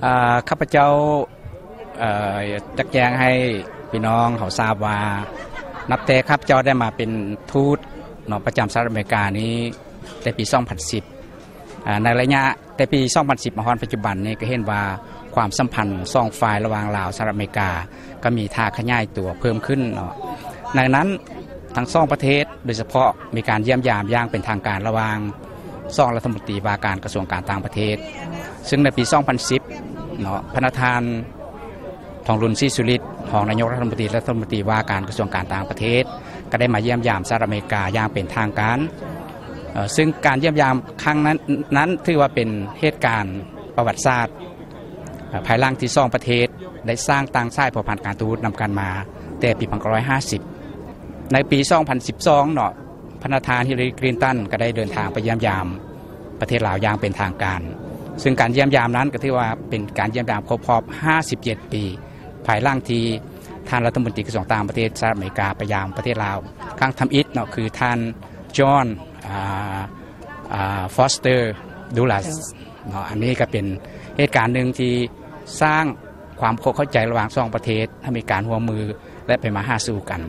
ເອີ ຂ້າພະເຈົ້າ ເອີ ຢາກແຈ້ງໃຫ້ພີ່ນ້ອງເຮົາຊາບວ່າ ນັບແຕ່ຂ້າພະເຈົ້າໄດ້ມາເປັນທູດເນາະ ປະຈຳສະຫະລັດອາເມລິການີ້ ແຕ່ປີສອງພັນສິບ ອາ ໃນໄລຍະແຕ່ປີສອງພັນສິບມາຮອດປັດຈຸບັນນີ້ ກໍເຫັນວ່າຄວາມສຳພັນສອງຝ່າຍລະຫວ່າງລາວ-ສະຫະລັດອາເມລິກາ ກໍມີທ່າຂະຫຍາຍຕົວເພີ່ມຂຶ້ນເນາະ. ໃນນັ້ນທັງສອງປະເທດ ໂດຍສະເພາະມີການຢ້ຽມຢາມຢ່າງເປັນທາງການລະຫວ່າງສອງລັດຖະມົນຕີວ່າການກະຊວງການຕ່າງປະເທດ ຊຶ່ງໃນປີສອງພັນສິບເນາະ ພະນະທ່ານ ທອງລຸນ ສີສຸລິດ ຮອງນາຍົກລັດຖະມົນຕີ ລັດຖະມົນຕີວ່າການກະຊວງການຕ່າງປະເທດ ກໍໄດ້ມາຢ້ຽມຢາມສະຫະລັດອາເມລິກາຢ່າງເປັນທາງການ ເຊິ່ງການຢ້ຽມຢາມຄັ້ງນັ້ນ ນັ້ນຖືວ່າເປັນເຫດການປະຫວັດສາດ ພາຍຫຼັງທີ່ສອງປະເທດໄດ້ສ້າງຕັ້ງສາຍພົວພັນການທູດນຳກັນມາແຕ່ປີພັນເກົ້າຮ້ອຍຫ້າສິບ. ໃນປີສອງພັນສິບສອງເນາະ ພະນະທ່ານ ຮິລລາຣີ ຄລິນຕັນ ກໍໄດ້ເດີນທາງໄປຢ້ຽມຢາມປະເທດລາວຢ່າງເປັນທາງການ ຊຶ່ງການຢ້ຽມຢາມນັ້ນກໍຖືວ່າເປັນການຢ້ຽມຢາມຄົບຮອບຫ້າສິບເຈັດປີ ພາຍຫຼັງທີ່ທ່ານລັດຖະມົນຕີກະຊວງຕ່າງປະເທດສະຫະລັດອາເມລິກາໄປຢາມປະເທດລາວຄັ້ງທຳອິດເນາະ ຄືທ່ານ ຈອນ ອາ ອາ ຟອສເຕີ ດູລັດ ເນາະ. ອັນນີ້ກໍເປັນເຫດການໜຶ່ງທີ່ສ້າງຄວາມເຂົ້າໃຈລະຫວ່າງສອງປະເທດ ໃຫ້ມີການຮ່ວມມື ແລະ ໄປມາຫາສູ່ກັນ.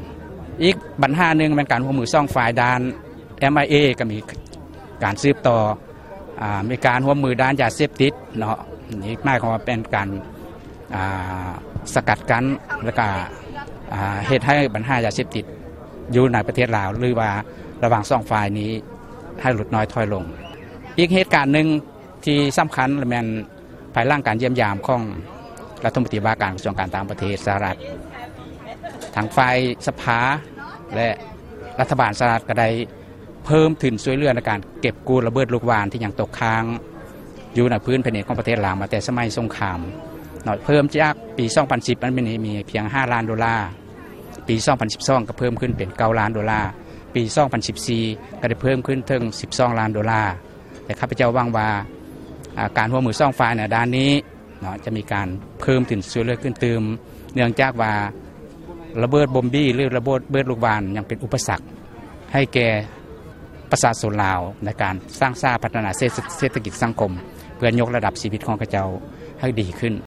ອີກບັນຫາໜຶ່ງແມ່ນການຮ່ວມມືສອງຝ່າຍດ້ານ ເອັມໄອເອ ກໍມີການສືບຕໍ່ ອາ ມີການຮ່ວມມືດ້ານຢາເສບຕິດເນາະ. ນີ້ໝາຍຄວາມວ່າເປັນການ ອາ ສະກັດກັ້ນ ແລ້ວກະ ອາ ເຮັດໃຫ້ບັນຫາຢາເສບຕິດຢູ່ໃນປະເທດລາວ ຫຼືວ່າລະຫວ່າງສອງຝ່າຍນີ້ໃຫ້ຫຼຸດນ້ອຍຖອຍລົງ. ອີກເຫດການໜຶ່ງທີ່ສຳຄັນແມ່ນ ພາຍຫຼັງການຢ້ຽມຢາມຂອງລັດຖະມົນຕີວ່າການກະຊວງການຕ່າງປະເທດສະຫະລັດ, ທາງຝ່າຍສະພາ ແລະ ລັດຖະບານສະຫະລັດກໍໄດ້ເພີ່ມທຶນຊ່ວຍເຫຼືອໃນການເກັບກູ້ລະເບີດລູກຫວ່ານທີ່ຍັງຕົກຄ້າງຢູ່ໃນພື້ນແຜ່ນດິນຂອງປະເທດລາວມາແຕ່ສະໄໝສົງຄາມເນາະ, ເພີ່ມຈາກປີສອງພັນສິບ ມັນມີ ມີພຽງຫ້າລ້ານໂດລາ, ປີສອງພັນສິບສອງກໍເພີ່ມຂຶ້ນເປັນເກົ້າລ້ານໂດລາ, ປີສອງພັນສິບສີ່ກໍໄດ້ເພີ່ມຂຶ້ນເຖິງສິບສອງລ້ານໂດລາ. ແລະ ຂ້າພະເຈົ້າຫວັງວ່າ ອາ ການຮ່ວມມືສອງຝ່າຍໃນດ້ານນີ້ເນາະ ຈະມີການເພີ່ມທຶນຊ່ວຍເຫຼືອຂຶ້ນຕື່ມ ເນື່ອງຈາກວ່າລະເບີດບົມບີ ຫຼື ລະເບີດ ເບີດລູກຫວ່ານຍັງເປັນອຸປະສັກໃຫ້ແກ່ປະຊາຊົນລາວ ໃນການສ້າງສາພັດທະນາເສດ ເສດຖະກິດສັງຄົມ ເພື່ອຍົກລະດັບຊີວິດຂອງເຂົາເຈົ້າໃຫ້ດີຂຶ້ນ.